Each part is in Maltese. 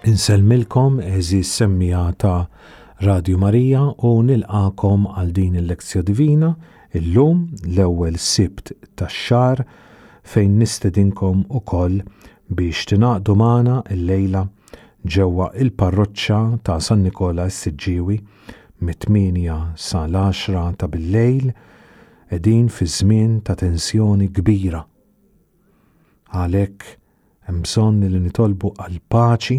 Insellmilkom għeżież semmiegħa ta' Radju Marija u nilqagħkom għal din il-Lectio Divina illum l-ewwel Sibt tax-xahar fejn nistedinkom ukoll biex tingħaqdu magħna llejla ġewwa il-Parroċċa ta' San Nikola s-Siġġiewi mit-tmienja sa l-għaxra ta' billejl qegħdin fi żmien ta' tensjoni kbira. Għalhekk hemm bżonn li nitolbu għall-paċi,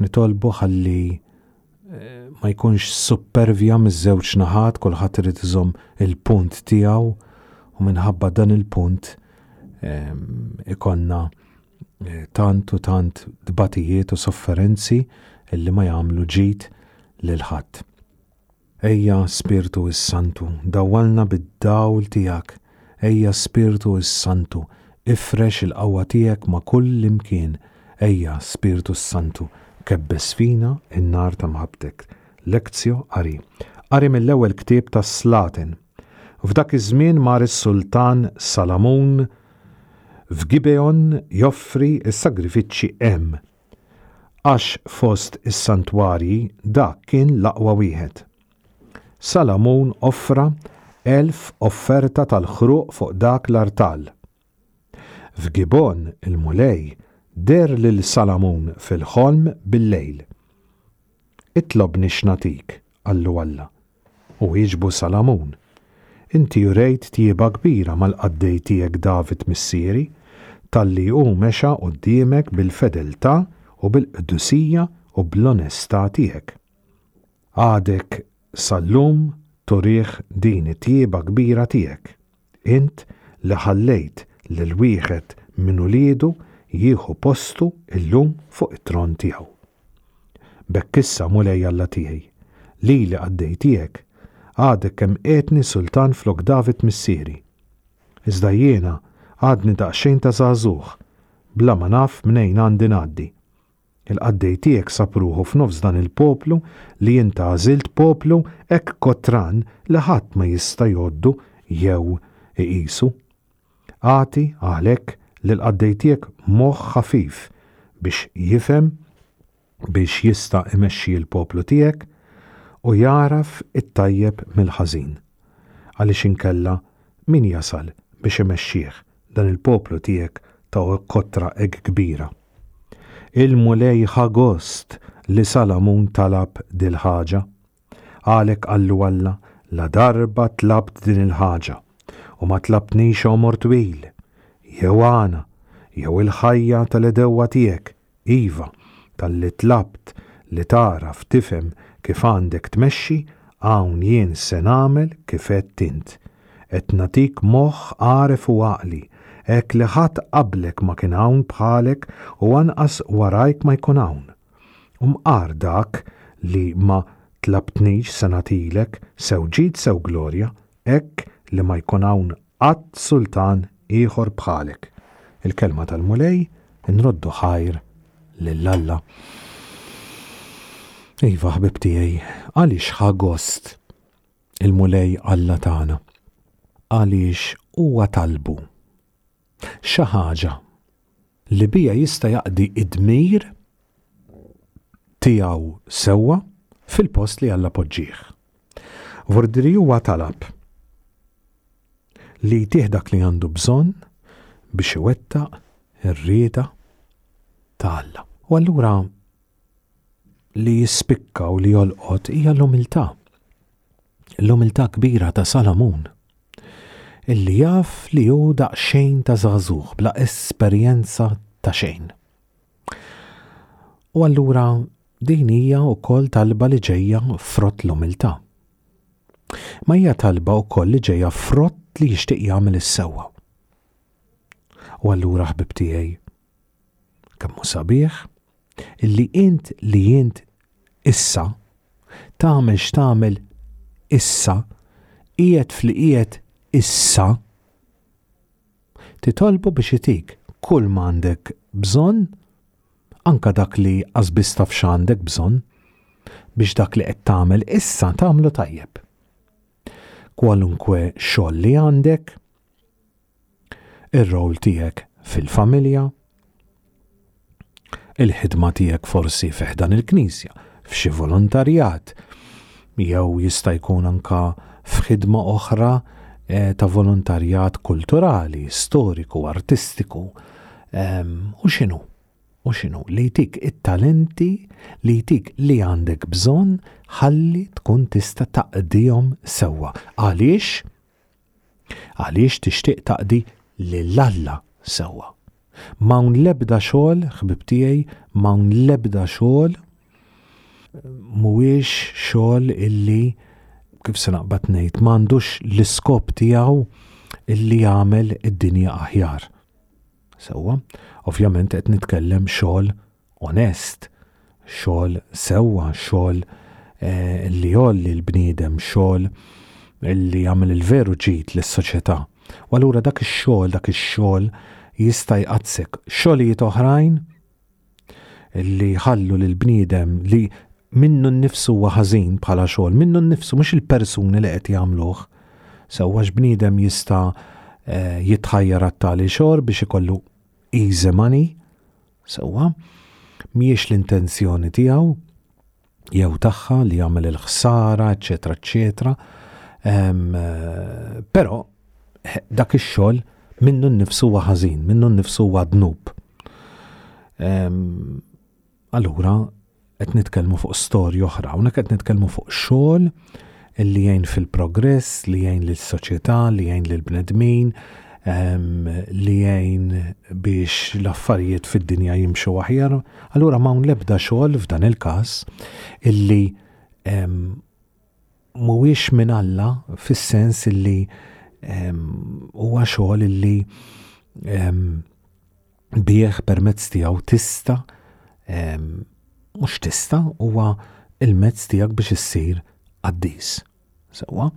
nitolbu ħalli eh, ma jkunx suppervja miż-żewġ naħat, kulħadd irid iżomm il-punt tiegħu u minħabba dan il-punt ehm, ikonna eh, tant u tant tbatijiet u sofferenzi illi ma jagħmlu ġid lil ħadd. Ejja, Spirtu s-Santu, dawwalna bid-dawl tiegħek, ejja, Spirtu s-Santu, ifrex il-qawwa tiegħek ma' kull imkien, ejja, Spirtu s-Santu, kebbes fina n-nar ta' mħabbtek. Lectio Qari. Qari mill-ewwel ktieb tas-Slaten. F'dak iż-żmien mar is-sultan Salamun f'Gibeon joffri s-sagrifiċċji hemm. Għax fost is-santwarji dak kien l-aqwa wieħed. Salamun offra 1,000 offerta tal-ħruq fuq dak l-artal. F'Gibgħon il-Mulej deher lil Salamun fil-ħolm billejl. Itlobni x'nagħtik, qallu Alla. U wieġbu Salamun, Inti urejt tjieba kbira mal-qaddej tiegħek David missieri, talli hu mexa quddiemek bil-fedeltà u bil-qdusija u bl-onestà tiegħek. Għadek sal-lum turih din it-tjieba kbira tiegħek, int li ħallejt lil wieħed minn uliedu jieħu postu llum fuq it-tron tiegħu. B'hekk issa, Mulej Alla tiegħi, lili qaddej tiegħek, għadek kemm qiegħdni sultan flok David missieri. Iżda jiena għadni daqsxejn ta' żagħżugħ, bla ma naf mnejn għandi ngħaddi. Il-qaddej tiegħek sab ruħu f'nofs dan il-poplu li int għażilt, poplu hekk kotran li ħadd ma jista' jgħoddu jew iqisu. Agħti, għalhekk, lill-qaddej tiegħek moħħ ħafif biex jifhem, biex jista' imexxi l-poplu tiegħek u jagħraf it-tajjeb mill-ħażin. Għaliex inkella min jasal biex imexxih dan il-poplu tiegħek ta' kotra hekk kbira? Il-Mulej ħa gost li Salamun talab dil-ħaġa. Għalhekk qallu Alla, Ladarba tlabt din il-ħaġa, u ma tlabtnix għomor twil, jew għana, jew il-ħajja tal-għedewwa tiegħek, iva, talli tlabt li tagħraf tifhem kif għandek tmexxi, hawn jien se nagħmel kif għedt int. Qed nagħtik moħħ għaref u għaqli, hekk li ħadd qablek ma kien hawn bħalek u anqas warajk ma jkun hawn. U mqar dak li ma tlabtnix se nagħtilek, sew ġid sew glorja, hekk li ma jkun hawn qatt sultan ieħor bħalek. Il-kelma tal-Mulej, inroddu ħajr lil Alla. Iva, ħbieb tiegħi, għaliex ħa gost il-Mulej Alla tagħna? Għaliex huwa talbu xi ħaġa li biha jista' jaqdi d-dmir tiegħu sewwa fil-post li Alla poġġieh. Vordiri huwa talab li jtih dak li għandu bżonn biex iwettaq ir-rieda ta' Alla. U allura li jispikka u li jolqot hija l-umiltà. L-umiltà kbira ta' Salamun illi jaf li hu daqsxejn ta' żagħżugħ bla esperjenza ta' xejn. U allura din hija wkoll talba li ġejja frott l-umiltà. Ma hija talba wkoll li ġejja frott li jixtieq jagħmel is-sewwa. U allura ħbib tiegħi, Kemm hu sabiħ illi int li int issa tagħmel x'tagħmel issa, qiegħed fli qiegħed issa, titolbu biex itik kull m'għandek bżonn, anka dak li qas biss taf x'għandek bżonn, biex dak li qed tagħmel issa tagħmlu tajjeb. Kwalunkwe xogħol li għandek, ir-role tiegħek fil-familja, il-ħidma tiegħek forsi fi ħdan il-Knisja, f'xi volontarjat, jew jista' jkun anka f'ħidma oħra eh, ta' volontarjat kulturali, storiku, artistiku, ehm, u x'inhu? U x'inhu? Li jtik it-talenti li jtik li għandek bżonn ħalli tkun tista' taqdihom sewwa. Għaliex? Għaliex tixtieq taqdi lil Alla sewwa. M'hawn l-ebda xogħol, ħbieb tiegħi, m'hawn l-ebda xogħol mhuwiex xogħol illi kif se naqbad ngħid m'għandux l-iskop tiegħu illi jagħmel id-dinja aħjar. Sewwa, ovvjament qed nitkellem xogħol onest, xogħol sewwa, xogħol eh, li jgħolli l-bniedem, xogħol li jagħmel il-veru ġid lis-soċjetà. U allura dak ix-xogħol, dak ix-xogħol jista' jqadsek. Xogħlijiet oħrajn li jħallu lill-bniedem li minnu nnifsu huwa ħażin bħala xogħol, minnu nnifsu mhux il-persuni li qed jagħmluh. Sewwa bniedem jista' eh, jitħajjar għat-tali xogħol biex ikollu easy money, sewwa, mhijiex l-intenzjoni tiegħu jew tagħha li jagħmel il-ħsara, eċetera, eċetera. Eh, però eh, dak ix-xogħol minnu nnifsu huwa ħażin, minnu nnifsu huwa dnub. Allura qed nitkellmu fuq storja oħra, hawnhekk qed nitkellmu fuq xogħol li jgħin fil-progress, li jgħin lis-soċjetà, li jgħin lill-bnedmin, li jgħin biex l-affarijiet fid-dinja jimxu aħjar. Allura m'hawn l-ebda xogħol f'dan il-każ illi mhuwiex minn Alla fis-sens illi huwa xogħol illi bih permezz tiegħu tista' mhux tista' huwa il-mezz tiegħek biex issir qaddis. Sewwa,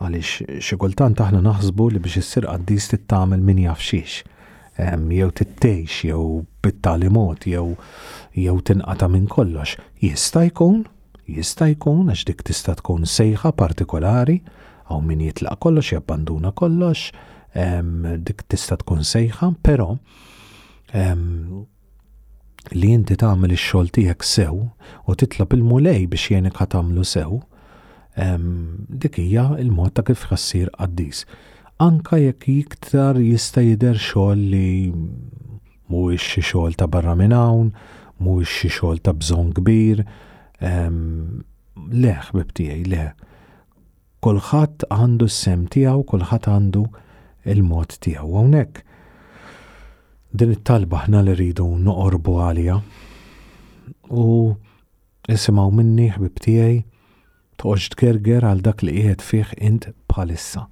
għaliex xi kultant aħna naħsbu li biex issir qaddis trid tagħmel min jaf xiex. Jew trid tgħix jew bit-tali mod jew jew tinqata' minn kollox. Jista' jkun, jista' jkun għax dik tista' tkun sejħa partikolari, hawn min jitlaq kollox, jabbanduna kollox, dik tista' tkun sejħa, però li inti tagħmel ix-xogħol tiegħek sew u titlob il-Mulej biex jgħinek ħa tagħmlu sew, dik hija l-mod ta' kif ħassir qaddis. Anka jekk iktar jista' jidher xogħol li mhuwiex xi xogħol ta' barra minn hawn, mhuwiex xi xogħol ta' bżonn kbir, le ħbib tiegħi, le. Kulħadd għandu s-sehem tiegħu, kulħadd għandu il-mod tiegħu. Hawnhekk din it-talba aħna li rridu noqorbu għaliha. U isimgħu minni ħbib tiegħi, toqgħodx tgerger għal dak li qiegħed fih int bħalissa.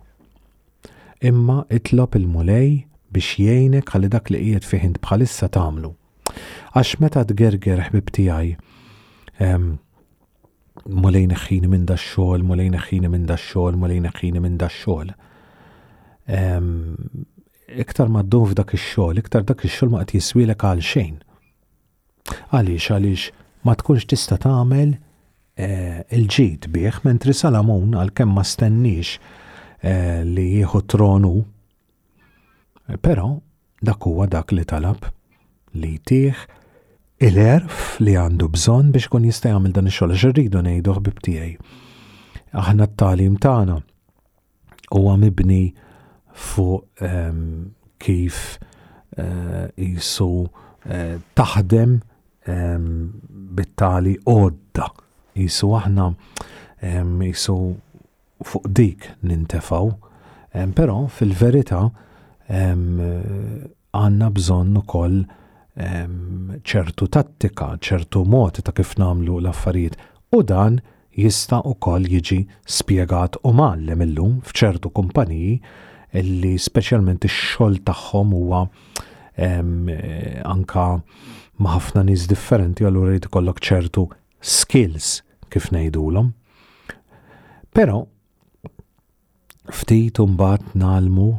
Imma itlob il-Mulej biex jgħinek ħalli dak li qiegħed fih int bħalissa tagħmlu. Għax meta tgerger ħbib tiegħi, Mulej neħħini minn da xogħol, Mulej neħħini minn da xogħol, Mulej neħħini minn da xogħol. Iktar ma ddum f'dak ix-xogħol, iktar dak ix-xogħol ma qed jiswielek għal xejn. Għaliex għaliex ma tkunx tista' tagħmel eh, il-ġid bih, mentri Salamun għalkemm ma stenniex eh, li jieħu tronu, però Dak huwa dak li talab, li jtih il-għerf li għandu bżonn biex ikun jista' jagħmel dan ix-xogħol. Għax irridu ngħidu ħbib tiegħi. Aħna t-tagħlim tagħna huwa mibni fuq ehm, kif eh, jisu eh, taħdem ehm, bit-tali għodda. Jisu aħna ehm, jisu fuq dik nintefgħu, però fil-verità għandna bżonn ukoll ċertu tattika, ċertu mod ta' kif nagħmlu l-affarijiet u dan jista' ukoll jiġi spjegat u mgħallem illum f'ċertu kumpaniji li speċjalment ix-xogħol tagħhom huwa anka ma' ħafna nies differenti allura jrid ikollok ċertu skills kif ngħidulhom. Però ftit imbagħad nagħlmu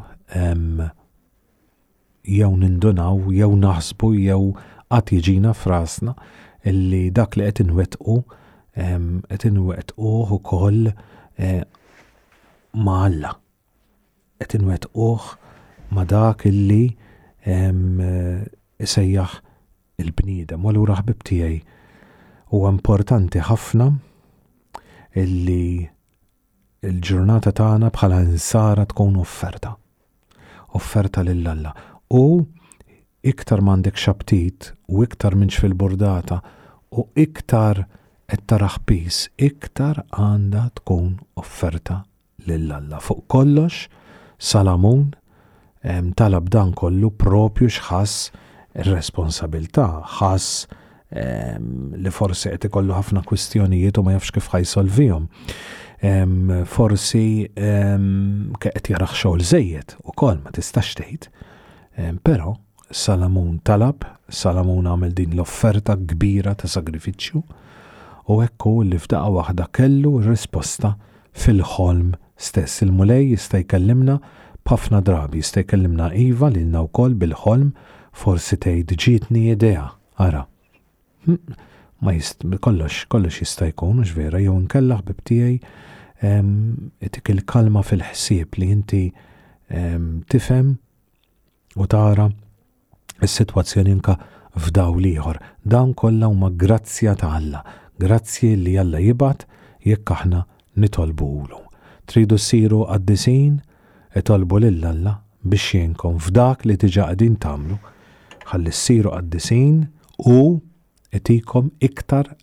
jew nindunaw jew naħsbu jew qatt jiġina f'rasna illi dak li qed inwettqu qed inwettquh ukoll eh, ma' Alla. Qed inwettquh ma' dak illi isejjaħ. il-bniedem. U allura ħbib tiegħi huwa importanti ħafna illi il-ġurnata tagħna bħala insara tkun offerta. Offerta lil Alla. U iktar m'għandek xaptit u iktar minx fil-burdata u iktar qed taraħ pis, iktar għandha tkun offerta lil Alla. Fuq kollox, Salamun talab dan kollu propju x'ħass ir-responsabilità, ħass li forsi qed ikollu ħafna kwistjonijiet u ma jafx kif ħa jsolvihom. Forsi qed jaraħ xogħol żejjed ukoll ma tistax tgħid. Però Salamun talab, Salamun għamel din l-offerta kbira ta' sagrifiċċju u hekk hu li f'daqqa waħda kellu r-risposta fil-ħolm stess. Il-Mulej jista' jkellimna b'ħafna drabi, jista' jkellimna iva lilna wkoll bil-ħolm, forsi tgħid ġietni idea, ara. Hm, ma jist, kollox, kollox jista' jkun, hux vera, jew inkella ħbib tiegħi itik il-kalma fil-ħsieb li inti tifhem u tara s-sitwazzjoni anka f'dawl ieħor. Dawn kollha huma grazzja ta' Alla, grazzji li Alla jibgħat jekk aħna nitolbuhulu. Tridu ssiru qaddisin? Itolbu lil Alla biex jgħinkom f'dak li diġà qegħdin tagħmlu ħalli ssiru qaddisin u itikom iktar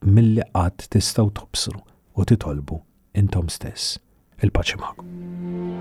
milli qatt tistgħu tobsru u titolbu intom stess. Il-paċi magħkom.